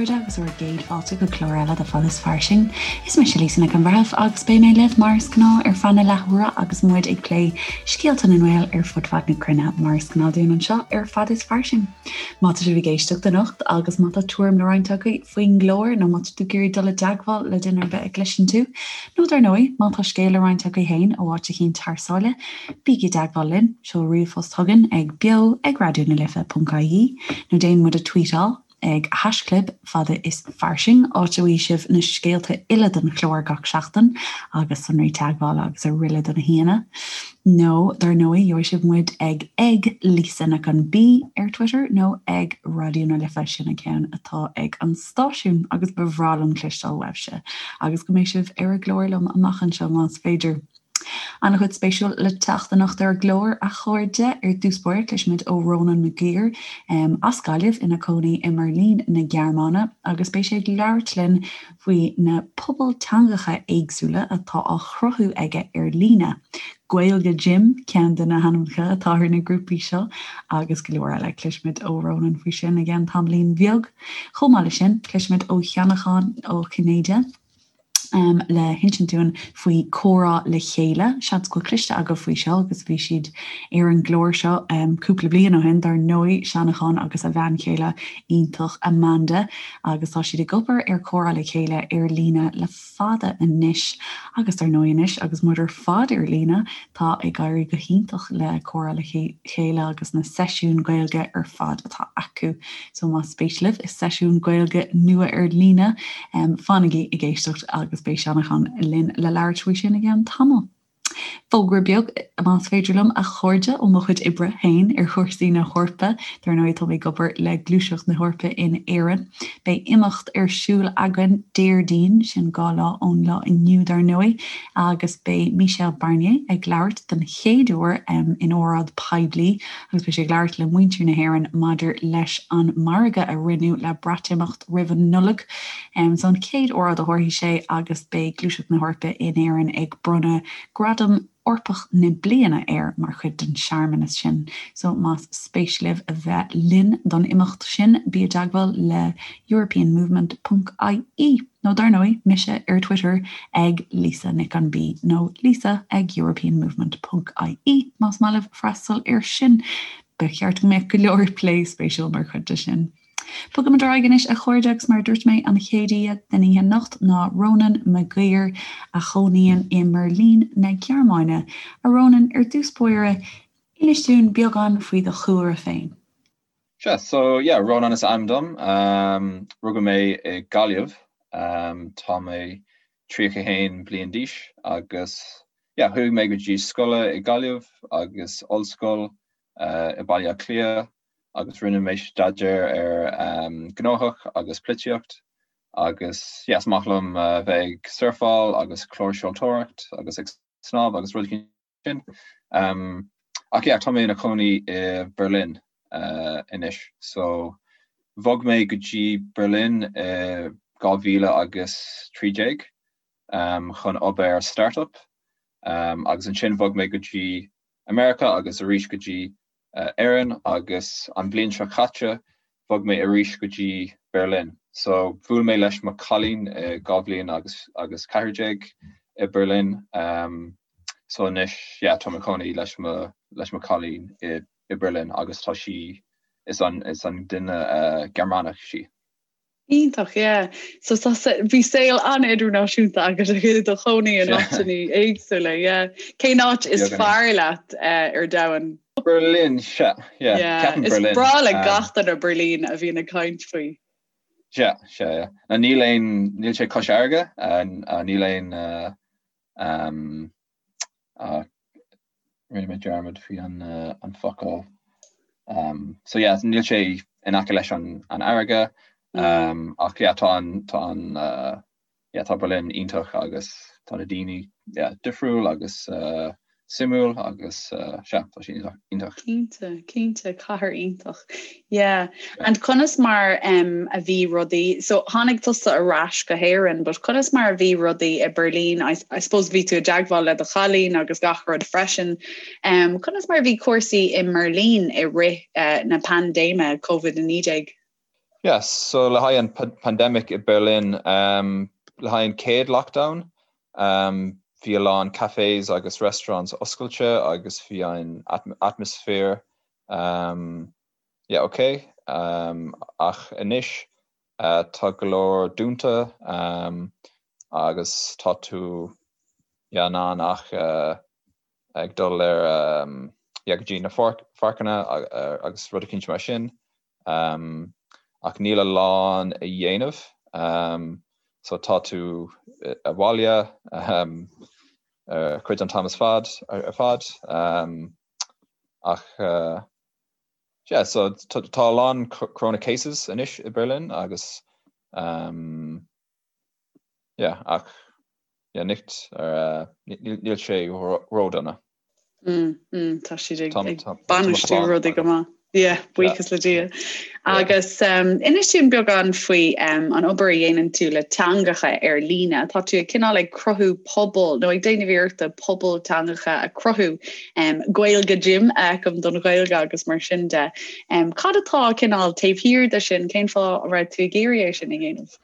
chairde agus bhur gcéad fáilte go clár eile de Fad is Fairsing. Is mise Lisa Nic an Bhreithimh agus beidh mé libh mar is gnáth ar feadh na leathuaire agus muid ag plé scéalta na nGael ar fud fad na cruinne mar is gnáth dúinn anseo ar Fad is Fairsing. Má tá sibh ag éisteacht anocht agus má tá tuairim le roinnt agaibh faoin gclár nó má tá tú ag iarraidh dul i dteagmháil le duine ar bith a gcloiseann tú, nó dar ndóigh, má tá scéal le roinnt agaibh féin ó áit eicínt thar sáile, bígí i dteagmháil linn, seol ríomhphost chugainn ag beo ag raidió na life ponc ie nó déan muid a tweetáil ag haischlib fada is fairsing, áit a bhfaighidh sibh na scéalta uile don chlár gach seachtain agus sonraí teagmhála agus araile do na haíonna. Nó, dar ndóigh, gheobhaidh sibh muid ag ag Lisa Nic an B ar Twitter nó ag Raidió na Life, sin an ceann atá ag an stáisiún agus ba bhreá liom cloisteáil uaibhse agus go mbeidh sibh ar an gclár liom amach anseo más féidir. An-chuid spéisiúil le teacht anocht ar an gclár, a chairde. Ar dtús báire, cloisfimid ó Rónán Mac Uidhir, as Gaillimh, ina cónaí i mBeirlín na Gearmáine, agus beidh sé ag labhairt linn faoi na pobail teangacha éagsúla atá á chruthú aige ar líne. Gaeilge Gym ceann de na hainmneacha atá ar na grúpaí seo, agus go leor eile. Cloisfimid ó Rónán faoi sin i gceann tamaillín bheag. Chomh maith leis sin, cloisfimid ó Sheanachán Ó Cinnéide, le hinsint dúinn faoi Comhrá le Chéile. Seans go bhfuil cloiste agaibh faoi seo agus bhí siad ar an gclár seo cúpla bliain ó shin, dar ndóigh, Seanachán agus a bhean chéile iontach Amanda agus tá siad ag obair ar Comhrá le Chéile ar líne le fada anois agus dar ndóigh anois agus muid ar fad ar líne tá ag éirí go hiontach le Comhrá le Chéile agus na seisiúin Gaeilge ar fad atá acu. So más spéis libh i seisiún Gaeilge nua ar líne, fanaigí ag éisteacht agus beidh Seanachán linn le labhairt faoi sin i gceann tamaill. Fógra beag, más féidir liom, a chairde, ó mo chuid oibre féin ar chúrsaí na hEorpa. Dar ndóigh, tá mé ag obair le Gluaiseacht na hEorpa in Éirinn. Beidh imeacht ar siúl againn Déardaoin, sin 2 lá ón lá inniu dar ndóigh, agus beidh Michel Barnier ag labhairt den chéad uair in óráid poiblí agus beidh sé ag labhairt le muintir na hÉireann maidir leis an margadh a rinneadh le Breatimeacht roimh an Nollaig. So an chéad óráid a thabharfaidh sé agus beidh Gluaiseacht na hEorpa in Éirinn ag bronnadh Gradam Eorpach na Bliana air mar chuid den searmanas sin. So más spéis libh a bheith linn don imeacht sin, bí i dteagmháil le europeanmovement ponc ie nó dar ndóigh, mise ar Twitter ag Lisa Nic an B nó Lisa ag europeanmovement ponc ie más maith libh freastal air sin. Ba cheart go mbeadh go leor plé spéisiúil mar chuid de sin. Bogaimid ar aghaidh anois a chairde agus mar a dúirt mé an chéad aoi den oíche anocht ná Rónán Mac Uidhir a chónaíonn i mBeirlín na Gearmáine. A Rónáin, ar dtús báire, inis dúinn beagán faoi do chúlra féin. Sea, so yeah, Rónán is ainm dom. Rugadh mé i Gaillimh. Tá mé 31 bliain d'aois agus yeah, chuaigh mé go dtí scoile i Gaillimh agus ollscoil i Baile Átha Cliath agus rinne mé staidéar ar gnóthach agus polaitíocht agus yeah, is maith liom bheith ag surfáil agus clársheoltóireacht agus ag snámh agus rudaí sin. Ach yeah, tá mé ina chónaí i Berlin anois. So bhog mé go dtí Berlin i 2013 chun obair ar startup agus ansin bhog mé go dtí America agus arís go dtí Éirinn agus an bhliain seo caite bhog mé arís go dtí Berlin. So bhuail mé leis mo cailín i 2 bhliain agus agus 14 i Berlin. Um, so anois yeah, tá mé i mo chónaí leis mo leis mo cailín i i Berlin agus tá sí is an is an duine uh, Gearmánach sí. Iontach, yeah. So tá bhí saol an-idirnáisiúnta agat i do chónaí in áiteanna éagsúla, yeah. Cén áit is fearr leat eh, ar domhan? Berlin, sea, yeah. Yeah, is breá le gach duine Berlin a bhíonn ag caint faoi. Sea, sea, yeah. Na níl aon, níl sé cois fharraige, níl aon um, uh, Rinne mé dearmad faoi an focal. So yeah, níl sé in aice leis an fharraige ach yeah, tá an tá an yeah, tá Berlin iontach agus tá na daoine yeah, difriúil agus suimiúil agus sea, tá sé iontach. Cinnte, cinnte, cathair iontach. Yeah. And conas mar um, a bhí rudaí, so tháinig tusa ar ais go hÉirinn, but conas mar a bhí rudaí i Berlin, I, I suppose bhí tú i dteagmháil le do chailín agus gach rud freisin. Um, conas mar a bhí cúrsaí i mBerlin i rith uh, na paindéime COVID-19? Yeah, so le haghaidh an pandemic i Berlin, um, le haghaidh an chéad lockdown, um, bhí a lán cafés agus restaurants oscailte agus bhí an atmosphere um, yeah, okay. Um, ach anois uh, tá go leor dúnta um, agus tá tú yeah, in ann ach uh, ag dul ar um, yeah, go dtí na pháirceanna agus rud eicínt mar sin. Ach níl a lán a dhéanamh so tá tú abhaile cuid an t-am is fad ar fad ach yeah so tá a lán corona cases anois i Berlin agus yeah ach yeah nicht níl sé ródhona. Mm, mm, tá siad ag bainistiú rudaí go maith. Yeah, buíochas le Dia. Agus um, inis dúinn beagán faoi um, an obair a dhéanann tú le teangacha ar líne. Tá tú ag cineál ag cruthú pobal nó ag déanamh iarrachta pobal teangacha a chruthú um, Gaeilge Gym a fheicim don Ghaeilge agus mar sin de. Um, cad atá cineál taobh thiar de sin, cén fáth a raibh tú ag iarraidh é sin a dhéanamh?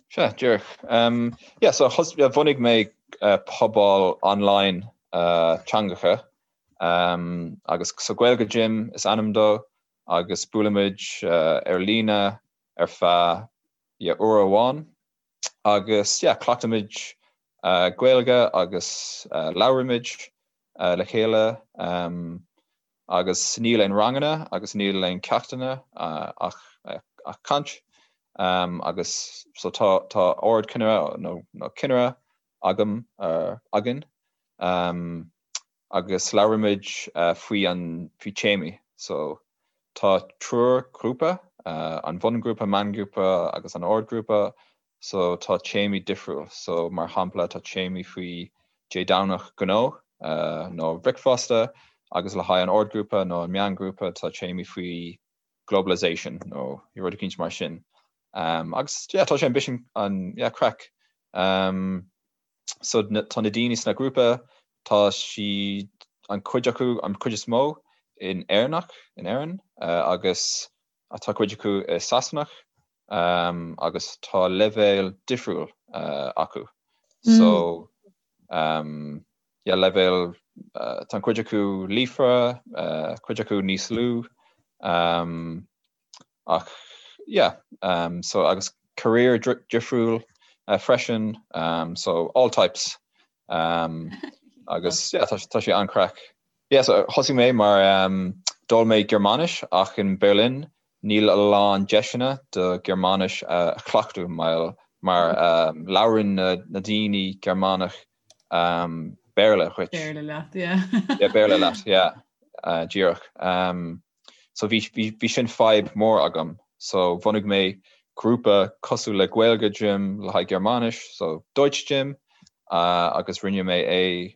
Sea, díreach. Yeah, so bhunaigh mé pobal online teangacha agus so Gaeilge Gym is ainm dó agus buailimid ar líne ar feadh yeah, uair amháin agus yeah, cleachtaimid Gaeilge agus labhraímid le chéile. Agus níl aon ranganna agus níl aon ceachtanna ach ach caint agus so tá tá ardchinnire nó nó cinnire agam againn agus labhraímid faoi an faoi téamaí so tá triúr grúpa an bhungrúpa, meángrúpa agus an ardghrúpa So tá téamaí difriúil. So mar shampla tá téamaí faoi Dé Domhnach gnó nó bricfeasta agus le haghaidh an ardghrúpa nó an meángrúpa tá téamaí faoi globalization nó rud eicínt mar sin. Um, agus yeah, tá sé an bisschen an yeah, craic. Um, so tá na daoine sna grúpa tá siad an cuid acu an cuid is mó in Éireannach in Éirinn uh, agus tá cuid acu i Sasanach agus tá leibhéal difriúil acu. So yeah leibhéal tá an cuid acu líofa, cuid acu níos lú ach yeah so agus career difriúil freisin so all types agus yeah tá sé an-craic. Yeah so thosaigh mé mar d'fhoghlaim mé Gearmáinis ach in Berlin Níl a lán deiseanna do Ghearmáinis a chleachtadh mar mar labhrann na daoine Gearmánach Béarla dhuit. Béarla leat, yeah. Yeah, Béarla leat, yeah. Díreach. So bhí bhí sin fadhb mór agam. So bhunaigh mé grúpa cosúil le Gaeilge Gym le haghaidh Gearmáinis, so Deutsch Gym, agus rinne mé é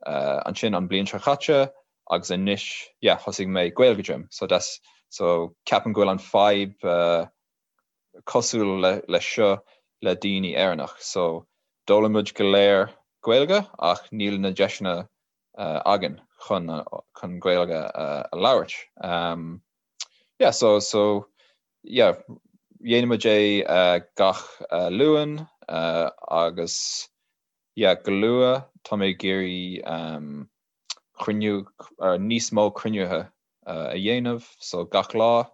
ansin an bliain seo chaite agus anois yeah thosaigh mé Gaeilge Gym so that's so ceapaim go bhfuil an fadhb cosúil le le seo le daoine Éireannach so d'fhoghlaim muid go léir Gaeilge ach níl na deiseanna againn chun chun Gaeilge a labhairt um yeah so so yeah dhéanaimid é gach Luan agus Yeah, go luath tá mé ag iarraidh cruinniú, níos mó cruinnithe a dhéanamh, so gach lá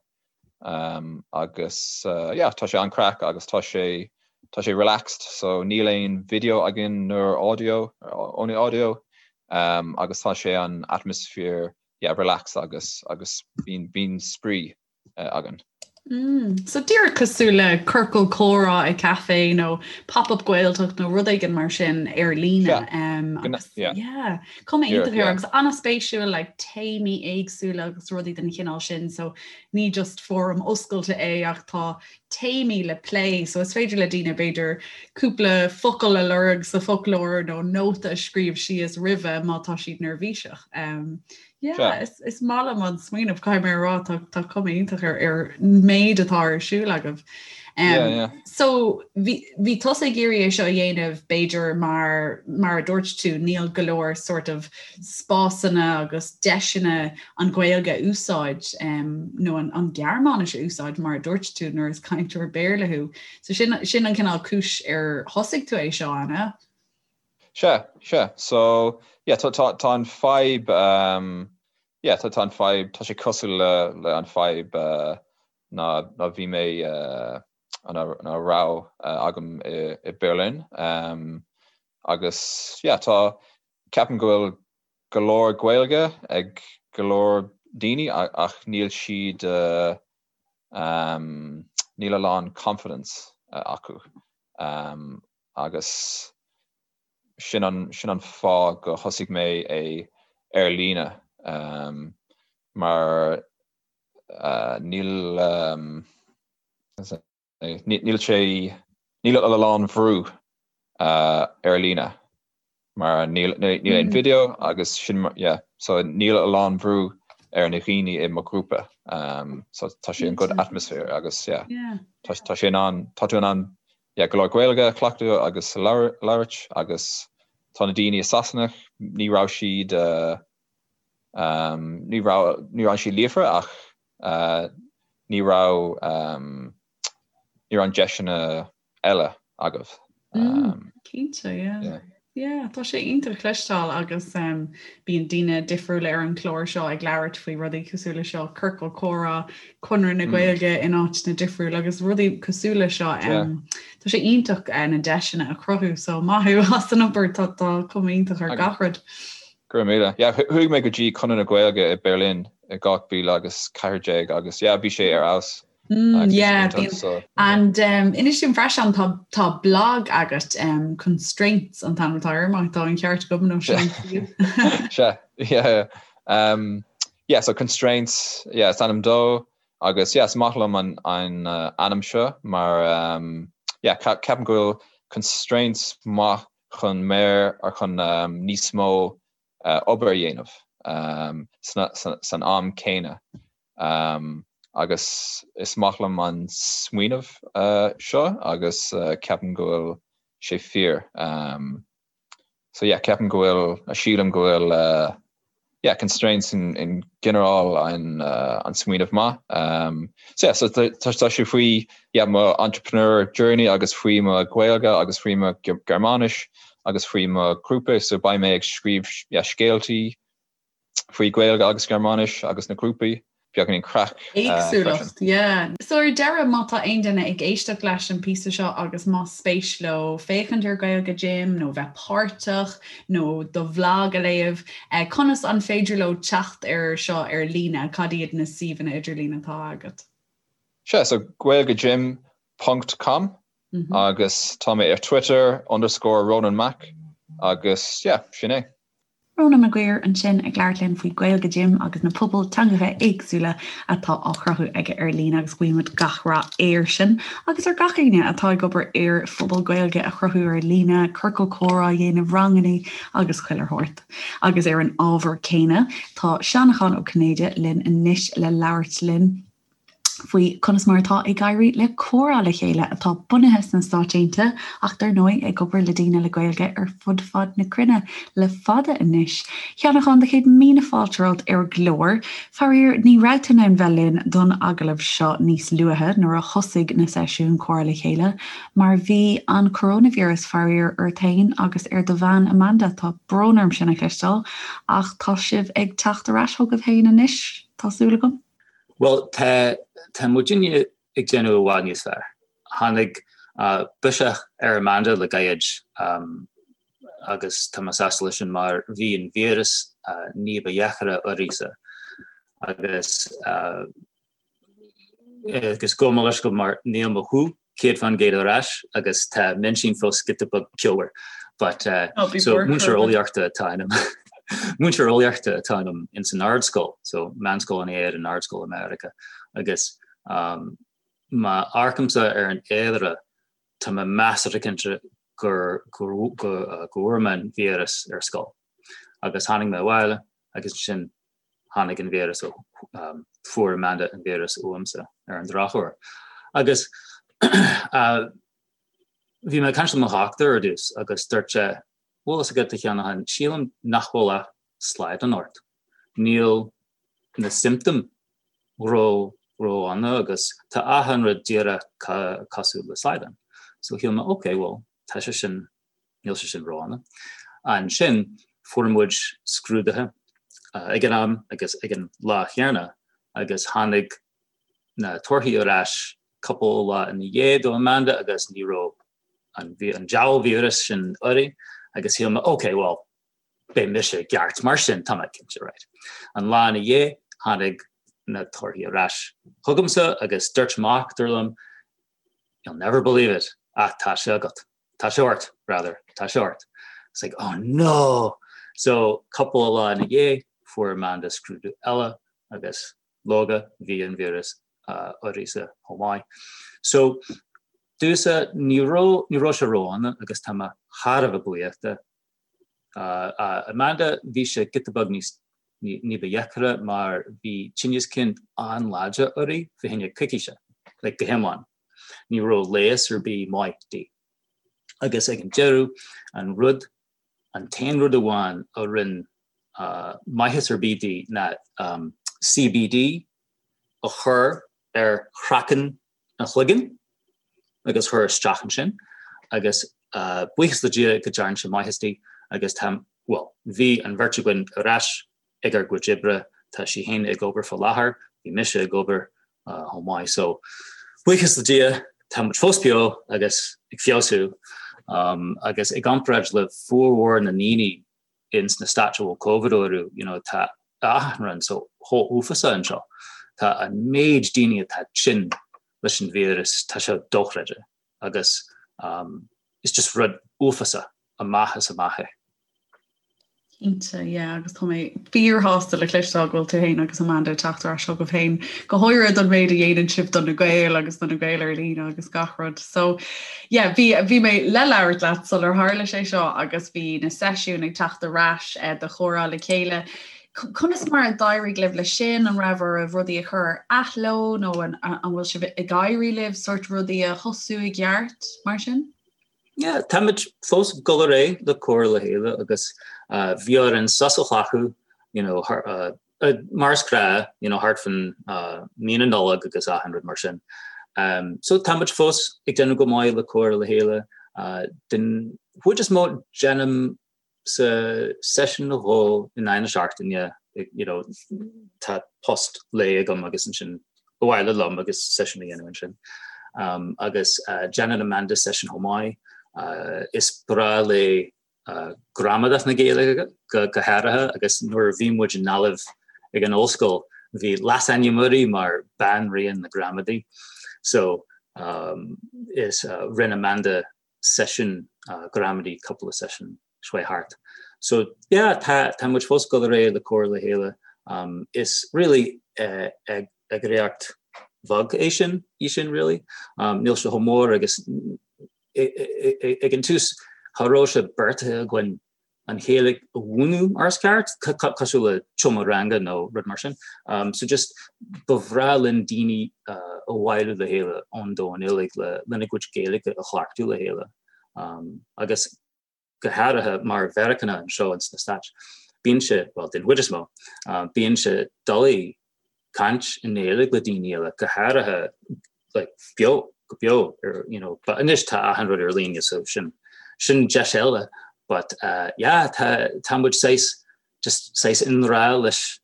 agus yeah tá sé an-craic agus tá sé tá sé relaxed so níl aon video againn nó audio, only audio agus tá sé an atmosphere yeah relaxed agus agus bíonn bíonn spraoi againn. Mm. So díreach cosúil le ciorcal comhrá i café nó pop-up Gaeltacht nó rud éigin mar sin ar líne. Yeah. Um, agus, yeah. yeah. Cuma iontach air agus an-spéisiúil like, téamaí éagsúla agus rudaí den chineál sin, so ní just fóram oscailte é ach tá téamaí le plé, so is féidir le daoine b'fhéidir cúpla focal a lorg sa foclóir nó nóta a scríobh síos roimhe má tá siad neirbhíseach. Um, Yeah, is, is maith liom an smaoineamh caithfidh mé a rá tá, tá cuma iontach ar, ar méid atá ar siúl agaibh. So bhí tusa ag iarraidh é seo a dhéanamh b'fhéidir mar mar a dúirt tú níl go leor sort of spásanna agus deiseanna an Ghaeilge a úsáid nó an Ghearmáinis a úsáid mar a dúirt tú nuair is cainteoir Béarla thú. So sin sin an cineál cúis ar thosaigh tú é seo, an ea? Sea, sea. So, yeah, tá tá tá an fadhb um, yeah, tá tá an fadhb, tá sé cosúil le le an fadhb uh, ná ná bhí mé uh, ná ná raibh uh, agam i, i Berlin. Um, agus yeah, tá ceapaim go bhfuil go leor Gaeilge ag go leor daoine ach níl siad uh, um, níl a lán confidence uh, acu. Um, agus sin an, sin an fáth go thosaigh mé é ar líne um, mar uh, níl um, níl sé níl a lán bhrú uh, ar líne mar níl níl aon video agus sin yeah, so níl a lán bhrú ar na dhaoine i mo ghrúpa um, so tá sé an good atmosphere agus yeah, yeah. Tá, tá sé in ann tá tú in ann yeah, go leor Gaeilge a chleachtadh agus labhairt agus tá na daoine i Sasana ní raibh siad uh, um, ní raibh ní raibh siad líofa ach uh, ní raibh um, ní raibh an deiseanna eile agaibh. Um, Cinnte, yeah. Yeah. Yeah, tá sé iontach cloisteáil agus um, bíonn daoine difriúla ar an chlár seo ag labhairt faoi rudaí cosúil le seo, ciorcal comhrá, Conradh na mm. Gaeilge in áiteanna difriúla agus rudaí cosúil le seo. Um, tá sé iontach uh, na deiseanna a chruthú, so maith thú as an obair tá tá cuma iontach ar gach rud. Go raibh míle. Yeah, chuaigh mé go dtí Conradh na Gaeilge i Berlin i 2014 agus yeah, bhí sé ar fheabhas. Mm, yeah, bíonn, so, and um, inis dúinn freisin tá, tá blog agat um, Constraints an t-ainm atá air má tá an ceart agam nó sin. Sea, yeah, um, yeah, so Constraints, yeah, is ainm dó agus yeah, is maith liom an, an uh, ainm seo mar um, yeah, ceapaim go bhfuil constraints maith chun mér ar chun um, níos mó uh, obair a dhéanamh um, san am céanna. Agus is maith liom an smaoineamh seo agus ceapaim go bhfuil sé fíor. So yeah, ceapaim go bhfuil, sílim go bhfuil yeah, constraints in ginearál an an smaoineamh maith. So yeah, so tá sé faoi yeah, mo entrepreneur journey agus faoi mo Ghaeilge agus faoi mo Gearmáinis agus faoi mo ghrúpa, so beidh mé ag scríobh yeah, scéaltaí faoi Gaeilge agus Gearmáinis agus na grúpaí, beagáinín craic Éagsúlacht, yeah. So ar deireadh, má tá aon duine ag éisteacht leis an píosa seo agus más spéis leo féachaint ar Gaeilge Gym nó bheith páirteach nó do bhlag a léamh, conas an féidir leo teacht ar seo ar líne? Cad iad na suíomhanna idirlín atá agat? Sea, so gaeilgegym ponc com agus tá mé ar Twitter underscore Ronan Mac agus yeah, sin é. Rónán Mac Uidhir ansin ag labhairt linn faoi Gaeilge Gym agus na pobail teangacha éagsúla atá á chruthú aige ar líne agus guímid gach rath air sin agus ar gach éinne atá ag obair ar phobal Gaeilge a chruthú ar líne, ciorcal comhrá a dhéanamh, ranganna agus chuile shórt. Agus ar an ábhar céanna, tá Seanchán Ó Cinnéide linn anois le labhairt linn. faoi conas mar atá ag éirí le Comhrá le Chéile, atá bunaithe sna Stáit Aontaithe ach dar ndóigh ag obair le daoine le Gaeilge ar fud fad na cruinne le fada anois. A Sheanacháin, do chéad míle fáilte romhat ar an gclár. Faraor, ní raibh tú in ann bheith linn don agallamh seo níos luaithe nuair a thosaigh na seisiúin Comhrá le Chéile mar bhí an coróinvíreas, faraor, ort féin agus ar do bhean Amanda. Tá brón orm sin a chloisteáil ach tá sibh ag teacht ar ais chugaibh féin anois, tá súil agam. Bhuel, tá, tá muidinne ag déanamh i bhfad níos fearr. Tháinig biseach ar Amanda le gairid agus tá mé sásta leis sin mar bhí an víreas ní ba dheacra uirthise agus agus gabh mo leithscéal mar níl mo ghuth 100% ar ais agus tá m'intinn fós giota beag ceomhar but so múinteoir eolaíochta atá ionam múinteoir eolaíochta atá ionam ins an ardscoil so meánscoil in Éirinn ardscoil i Meiriceá agus um, má amharcaimse ar an fhéilire tá mé measartha cinnte gur go go bhfuair mé an víreas ar scoil agus tháinig mé abhaile agus ansin tháinig an víreas ó, fuair Amanda an víreas uaimse ar an drochuair. Agus. Bhí mé ag caint le mo dhochtúir ar dtús agus dúirt sé, bhfuil fhios agat a Sheanacháin, sílim nach bhfuil ach slaghdán ort. Níl na symptoms ró ró-dhona agus tá achan rud díreach cosúil le slaghdán. So shíl mé ok, well, tá sé sin, níl sé sin ró-dhona. Ansin fuair muid scrúduithe ag an am agus ag an lá chéanna agus tháinig na torthaí ar ais cúpla lá ina dhiaidh do Amanda agus ní raibh an an diabhal víreas sin uirthi agus shíl mé ok, well, beidh mise i gceart mar sin, tá mé cinnte, right. An lá ina dhiaidh, tháinig na torthaí ar ais chugamsa agus dúirt mo dhochtúir liom, you'll never believe it, ach tá sé agat. Tá sé ort, rather, tá sé ort. It's like, oh no! So, cúpla lá ina dhiaidh, fuair Amanda scrúdú eile agus leoga, bhí an víreas uirthise chomh maith. So, domhsa, ní raibh, ní raibh sé ródhona agus tá mé thar a bheith buíoch de. Amanda, bhí sé giota beag níos ní ba dheacra mar bhí tinneas cinn an-láidir uirthi fá choinne coicíse, like go hiomlán. Ní raibh leigheas ar bith maith di. Agus ag an deireadh, an rud, an t-aon rud amháin a rinne maitheas ar bith di ná CBD a chur ar chraiceann an chloiginn agus chur isteach ansin agus buíochas le Dia go dtearn sé maitheas di agus tá, bhuel, bhí an bheirt againn ar ais ag ár gcuid oibre, tá sí féin ag obair faoi láthair, bhí mise ag obair chomh maith so buíochas le Dia tá muid fós beo agus ag feabhsú agus i gcomparáid le formhór na ndaoine ins na Stáit a bhfuil Covid orthu, you know, tá achan rud so chomh uafásach anseo. Tá an méid daoine atá tinn leis an víreas, tá sé dochreidte agus um, is just rud uafásach amach is amach é. Cinnte, yeah, agus tá mé fíorshásta le cloisteáil go bhfuil tú féin agus Amanda ag teacht ar ais chugaibh féin, go háirithe don méid a dhéanann sibh do na Gaeil agus do na Gaeil ar líne agus gach rud. So, yeah, bhí, bhí mé le labhairt leat sular tharla sé seo agus bhí na seisiúin ag teacht ar ais eh, do chomhrá le chéile. Conas mar a d'éirigh libh leis sin? An raibh oraibh rudaí a chur ar athló nó an, an bhfuil sibh ag éirí libh sórt rudaí a thosú i gceart mar sin? Yeah, táimid fós ag dul ar aghaidh le comhrá le chéile agus uh, bhí orainn sos a ghlacadh, you know, uh, uh, mar is gnáth, you know, thart fan uh, mí na Nollag agus achan rud mar sin. Um, so táimid fós ag déanamh go maith le comhrá le chéile. Uh, den chuid is mó déanaim sa seisiún nó dhó in aghaidh na seachtaine, you know, tá post lae agam agus ansin abhaile liom agus seisiún a dhéanamh ansin. Um, agus uh, déanann Amanda seisiún chomh maith. Uh, is breá léi uh, gramadach na Gaeilge go, go háirithe agus nuair a bhí muid i nGaillimh ag an ollscoil bhí leasainm uirthi mar Banríon na Gramadaí. So um, is uh, rinne Amanda seisiún gramadaí cúpla seisiún seo thart. So yeah tá tá muid fós ag dul ar aghaidh le comhrá le chéile. Um, is really uh, eagraíocht bheag é sin í sin really. Um, níl sé chomh mór agus ag an tús cha raibh sé beartaithe againn an Ghaeilge a mhúineadh mar is ceart, cosúil le seomra ranga nó rud mar sin. Um, so just ba bhreá linn daoine uh, a bhailiú le chéile ón domhan uilig le lena gcuid Gaeilge a chleachtadh le chéile. Um, agus go háirithe mar Mheiriceánach anseo ins na Stáit. Bíonn sé, well, den chuid is mó, uh, bíonn sé doiligh caint i nGaeilge le daoine eile, go háirithe like, beo, go beo, ar, you know, but anois tá achan rud ar líne so sin sin deis eile, but uh, yeah, tá, tá muid saghas, just saghas i ngrá leis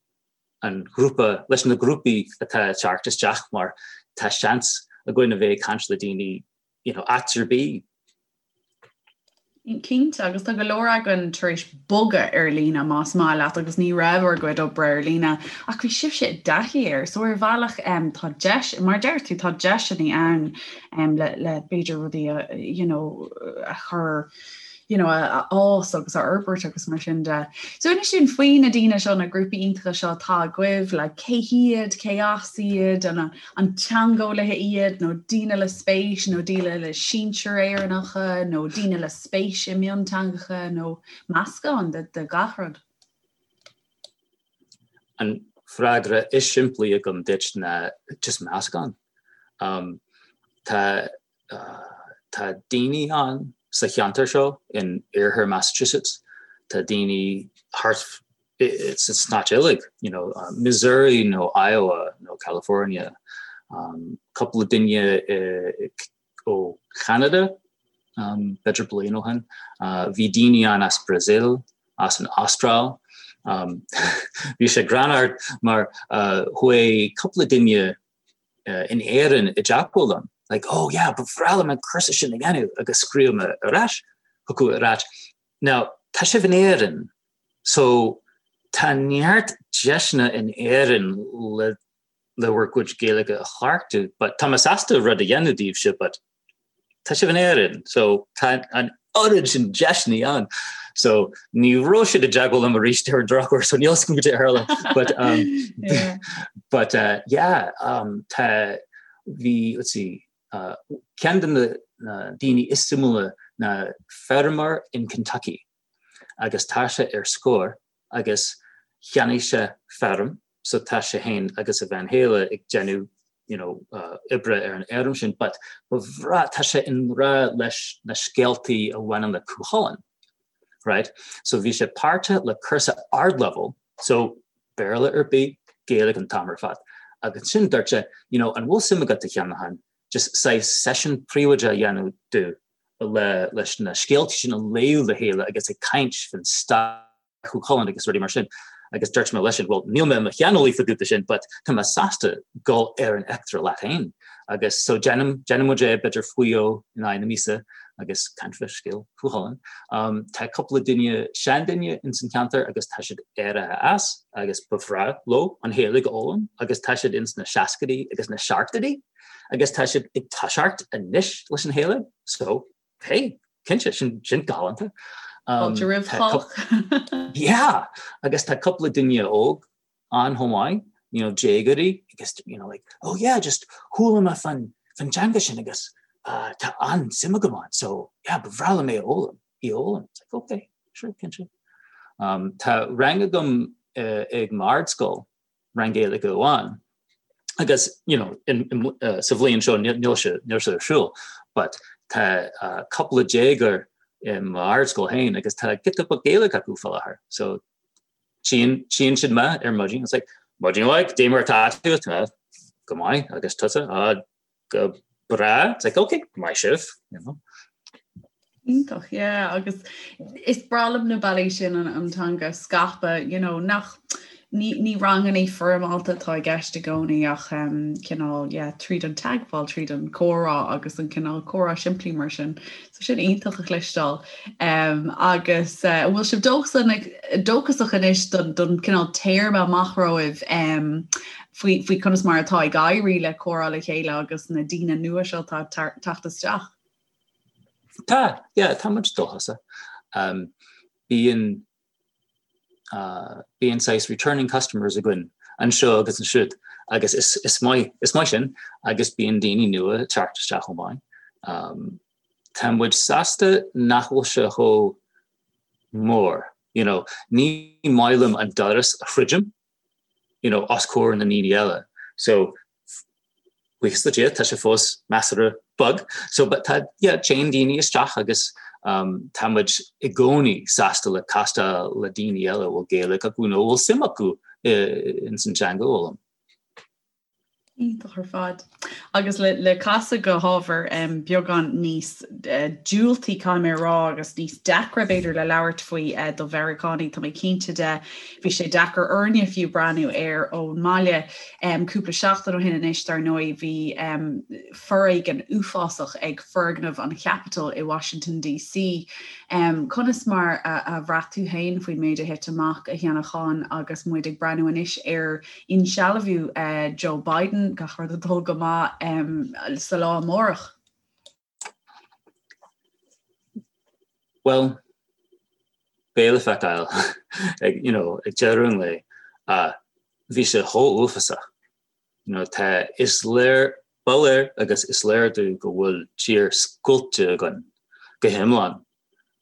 an ghrúpa, leis na grúpaí atá ag teacht isteach mar tá seans againn a bheith ag caint le daoine you know, áit ar bith. Cinnte, agus tá go leor againn tar éis bogadh ar líne más maith leat agus ní raibh ár gcuid oibre ar líne ach bhí sibhse i dtaithí air so ar bhealach um, tá deis, mar deir tú tá deiseanna ann um, le, le b'fhéidir rudaí a, you know, a chur you know, a fhás agus a fhorbairt agus mar sin de. So inis dúinn faoi na daoine seo na grúpaí iontacha seo atá agaibh le cé hiad, cé as iad, an, an teangeolaithe iad nó daoine le spéis nó daoine le sinsir Éireannacha nó daoine le spéis i mionteangacha nó meascán de, de gach rud. An freagra is simplí agam duit ná just meascán. Um, tá. Tá daoine ann sa cheantar seo in iarthar Massachusetts, tá daoine thart sa stáit uilig, you know, Missouri nó Iowa nó California, cúpla duine ó Cheanada, b'fhéidir bliain ó shin. Bhí daoine ann as Brazil, as an Astráil. Bhí sé greannmhar mar chuaigh cúpla duine in Éirinn i dteagmháil liom, like, oh yeah, ba bhreá liom an cúrsa sin a dhéanamh agus scríobh mé ar ais chucu ag ráit, now, tá sibh in Éirinn, so tá neart deiseanna in Éirinn le le bhur gcuid Gaeilge a chleachtadh, but tá mé sásta rud a dhéanamh daoibhse, but tá sibh in Éirinn, so tá an oiread sin deiseanna ann. So ní raibh siad i dteagmháil liom arís ar an drochuair, so níl a fhios agam cad é a tharla. But, um, yeah. but uh, yeah, um, tá bhí, let's see, uh, ceann de na, na daoine is suimiúla ná feirmeoir in Kentucky agus tá sé ar scor agus cheannaigh sé feirm so tá sé féin agus a bhean chéile ag déanamh you know oibre ar an fheirm sin but ba bhreá tá sé i ngrá leis na scéaltaí a bhaineann le Cú Chulainn right so bhí sé páirteach le cúrsa ardleibhéal so Béarla ar bith Gaeilge an t-am ar fad agus ansin dúirt sé you know an bhfuil suim agat a Sheanacháin just saghas seisiún príobháideach a dhéanamh domh le leis na scéaltaí sin a léamh le chéile agus ag caint faoin stair Chú Chulainn agus rudaí mar sin. Agus dúirt mé leisean, bhuel, níl mé i mo shaineolaí fá dtaobh de sin, but tá mé sásta dul ar an eachtra leat féin. Agus so déanann, déanann muid é b'fhéidir faoi dhó in aghaidh na míosa agus caint fá scéal Chú Chulainn. Um, tá cúpla duine, seanduine ins an ceantar agus tá siad éirithe as agus ba bhreá leo an Ghaeilge a fhoghlaim agus tá siad ins na seascaidí agus na seachtóidí agus tá siad ag toiseacht anois leis an Ghaeilge. So, hey, cinnte, sin, sin galánta. Um, Fáilte roimh chách. Yeah, agus tá cúpla duine óg ann chomh maith, you know, déagóirí, agus, you know, like, oh yeah, just chuala mé fan, fan teanga sin agus uh, tá an-suim agam ann, so yeah, ba bhreá liom é a fhoghlaim, í a fhoghlaim. It's like, okay, sure, cinnte. Um, tá rang agam uh, ag m'ardscoil rang Gaeilge amháin. Agus, you know, in, in, uh, sa bhliain seo níl sé, níl sé ar siúl, but tá uh, cúpla déagóir i m'ardscoil féin agus tá giota beag Gaeilge acu fá láthair. So tchíonn, tchíonn siad mé ar maidin, it's like, maidin mhaith, cad é mar atá tú, tá go maith agus tusa, ah, go breá, it's like, okay, maith sibh, you know. Iontach, yeah, agus is breá liom na bealaí sin an, an teanga a scaipeadh, you know, nach ní, ní ranganna foirmeálta atá i gceist i gcónaí ach um, cineál, yeah, tríd an teagmháil, tríd an comhrá agus an cineál comhrá simplí mar sin. So sin iontach a chloisteáil. Um, agus uh, bhfuil sibh dóchasach anois don, don cineál téarma amach romhaibh um, faoi, faoi conas mar atá ag éirí le comhrá le chéile agus na daoine nua seo atá ag teacht isteach? Tá, yeah, tá muid dóchasach. Um, bíonn uh, bíonn saghas returning customers againn anseo agus ansiúd agus is, is, maith, is maith sin agus bíonn daoine nua ag teacht isteach chomh maith. Um, tá muid sásta nach bhfuil sé chomh mór, you know, ní maith liom an doras a dhruidim, you know, os comhair na ndaoine eile. So, buíochas le Dia, tá sé fós measartha beag. So, but tá, yeah, téann daoine isteach agus um, tá muid i gcónaí sásta le castáil le daoine eile a bhfuil Gaeilge acu nó a bhfuil suim acu ins an teanga a fhoghlaim. Iontach ar fad. Agus le, le casadh go hábhar um, beagán níos uh, diúltaí caithfidh mé a rá agus níos deacra b'fhéidir le labhairt faoi uh, do Mheiriceánaigh, tá mé cinnte de bhí sé deacair orainne fiú breathnú air ón mbaile. Um, cúpla seachtain ó shin anois dar ndóigh bhí um, foréigean uafásach ag foirgneamh an Capitol i Washington DC. Um, conas mar a, a bhraith tú féin faoin méid a thit amach a Sheanacháin agus muid ag breathnú anois ar insealbhú Joe Biden, gach rud ag dul go maith sa lá amárach. Bhuel, beidh le feiceáil ag, you know, ag deireadh an lae. Bhí sé chomh uafásach. You know, tá, is léir, ba léir agus is léir domh go bhfuil tír scoilte againn go hiomlán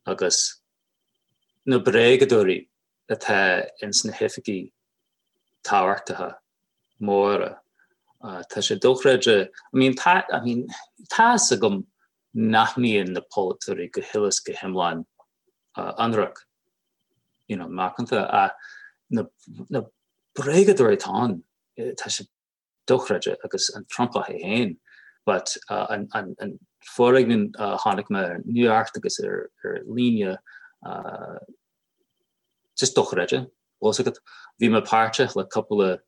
agus na bréagadóirí atá ins na hoifigí tábhachtacha móra. Tá sé dochreidte, I mean, tá, I mean, tá fhios agam. nach mbíonn na polaiteoirí go huile is go hiomlán ionraic, you know, macánta, ach na, na bréagadóirí atá ann, tá sé dochreidte agus an Trumpach é féin, but an, an, an foréigean a chonaic mé ar an nuacht agus ar, ar líne, just dochreidte, bhfuil fhios agat. Bhí mé páirteach le cúpla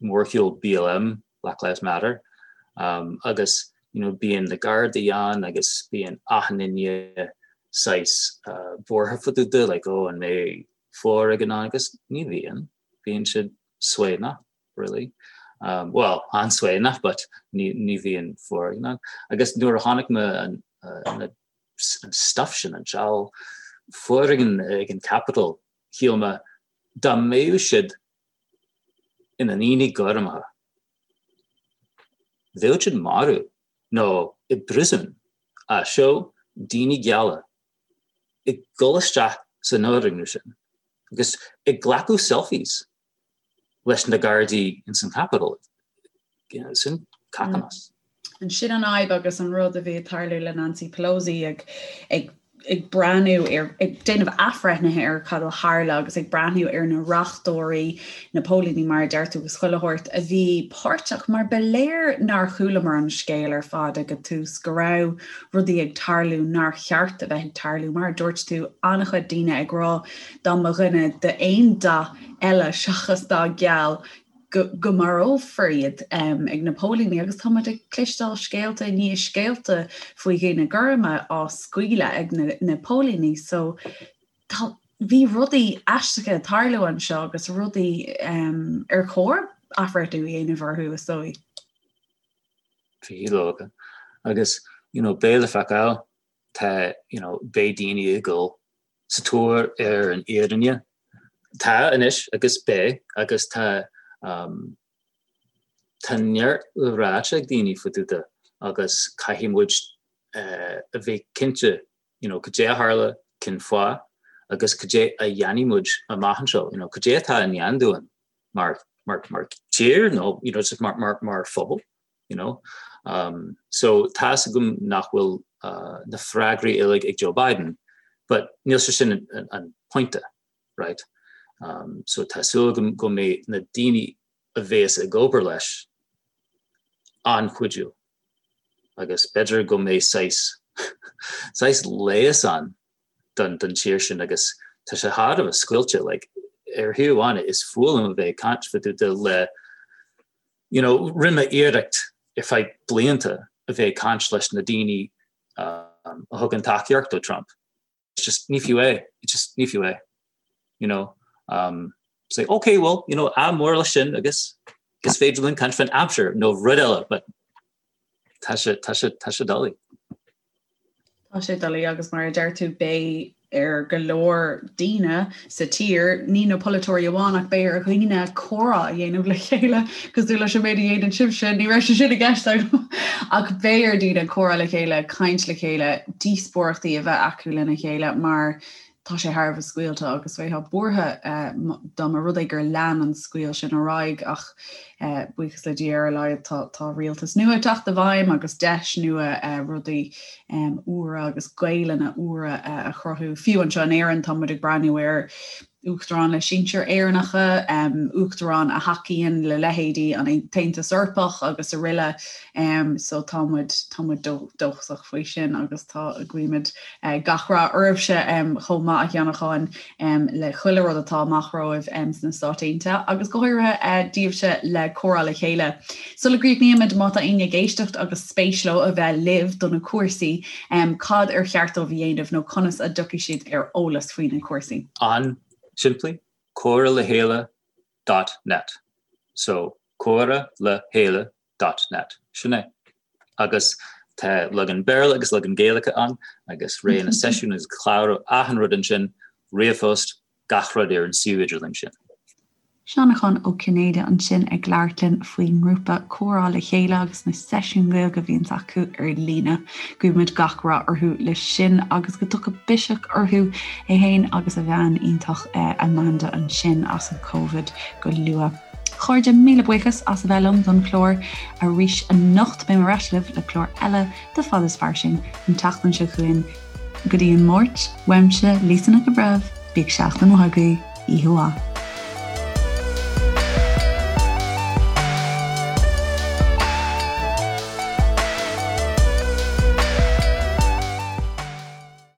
mórshiúl BLM, Black Lives Matter, agus you know bíonn na Gardaí ann agus bíonn achan duine saghas buartha fá dtaobh de like oh an mbeidh foréigean ann agus ní bhíonn, bíonn siad suaimhneach really. Um, well, an-suaimhneach but ní, ní bhíonn foréigean ann. Agus nuair a chonaic mé an, uh, na, an stuff sin an seal foréigean ag an Capitol, shíl mé dá mbeadh siad ina ndaoine gorma. Bheadh siad marbh nó i bpríosún ach seo daoine geala ag dul isteach san fhoirgneamh sin agus ag glacadh selfies leis na Gardaí ins an Capitol. Sin cacamas. And sin an fhadhb agus an rud a bhí ag tarlú le Nancy Pelosi ag ag ag breathnú ar, ag déanamh athbhreithnithe ar cad a tharla agus ag breathnú ar na reachtóirí, na póilíní mar a deir tú agus chuile shórt a bhí páirteach mar ba léir nár chualamar an scéal ar fad ag an tús go raibh rudaí ag tarlú nár cheart a bheith ag tarlú. Mar a dúirt tú, an-chuid daoine ag rá dá mba dhuine d'aon dath eile seachas dath geal go marófar iad ag na póilíní agus tá muid ag cloisteáil scéalta i ndiaidh scéalta faoi dhaoine gorma á scaoileadh ag na póilíní so tá bhí rudaí aisteacha ag tarlú anseo agus rudaí ar chóir athbhreithniú a dhéanamh orthu is dóigh. Bhí leoga agus you know beidh le feiceáil tá you know beidh daoine ag dul sa tóir ar an fhírinne Tá anois agus beidh agus tá tá neart le ráite ag daoine fá dtaobh de agus caithfidh muid a bheith cinnte you know cad é a tharla, cén fáth agus cad é a dhéanfaidh muid amach anseo, you know cad é atá i ndán dúinn mar mar mar tír nó you know just mar mar mar phobal. you know. Um, so tá's agam nach bhfuil uh, na freagraí uilig ag Joe Biden, but níl sé sin an, an, an pointe, right? Um, so tá súil agam go mbeidh na daoine a bhéas ag obair leis an-chuidiúil agus b'fhéidir go mbeidh saghas saghas leigheas ann don don tír sin agus tá sé thar a bheith scoilte like, ar thaobh amháin is fuath liom a bheith ag caint fá dtaobh de le you know, rinne mé iarracht ar feadh blianta a bheith ag caint leis na daoine um, a thugann tacaíocht do Trump. It's just ní fiú é, it's just ní fiú é. You know, um, say, okay, well, you know, ádh mór leis sin agus is féidir linn caint faoin aimsir nó rud eile, but tá sé, tá sé, tá sé doiligh. Tá sé doiligh agus mar a deir tú beidh ar go leor daoine sa tír, ní na polaiteoirí amháin ach beidh ar dhaoine comhrá a dhéanamh le chéile cosúil leis an méid a dhéanann sibhse, ní raibh sé sin i gceist agam ach beidh ar daoine comhrá le chéile, caint le chéile, díospóireachtaí a bheith acu lena chéile mar tá sé thar a bheith scaoilte agus bheifeá buartha dá mba rud é gur lean an scaoll sin ar aghaidh ach buíochas le Dia ar a laghad tá tá rialtas nua ag teacht i bhfeidhm agus deis nua rudaí úra agus Gaelainne úra a chruthú. Fiú anseo in Éirinn tá muid ag breathnú ar Uachtarán le sinsir Éireannacha, Uachtarán a thacaíonn le leithéidí an tAontas Eorpach agus araile so tá muid tá muid dóchasach faoi sin agus tá guímid Gach rath oraibhse chomh maith a Sheanacháin le chuile rud atá amach romhaibh sna Stáit Aontaithe agus go háirithe daoibhse le Comhrá le Chéile. Sula gcríochnaímid, má tá éinne ag éisteacht agus spéis leo a bheith libh do na cúrsaí, cad ar cheart dóibh a dhéanamh nó conas a dtiocfaidh siad ar eolas faoi na cúrsaí? An-simplí, comhrá le chéile dot net. So, comhrá le chéile dot net. Sin é. Agus tá leagan Béarla agus leagan Gaeilge ann agus rogha na seisiún agus clárú achan rud ansin, ríomhphost, gach rud ar an suíomh idirlín sin. Seanachán Ó Cinnéide ansin ag labhairt linn faoin ngrúpa Comhrá le Chéile agus na seisiúin Ghaeilge a bhíonns acu ar líne. Guímid gach rath orthu leis sin agus go dtiocfaidh biseach orthu, é féin agus a bhean iontach Amanda ansin as an Covid go luath. Chairde, míle buíochas as a bheith liom don chlár arís anocht. Beidh mé ar ais libh le clár eile de Fad is Fairsing an tseachtain seo chugainn. Go dtí an Máirt, uaimse, Lisa Nic an Bhreithimh, bíodh seachtain mhaith agaibh, oíche mhaith.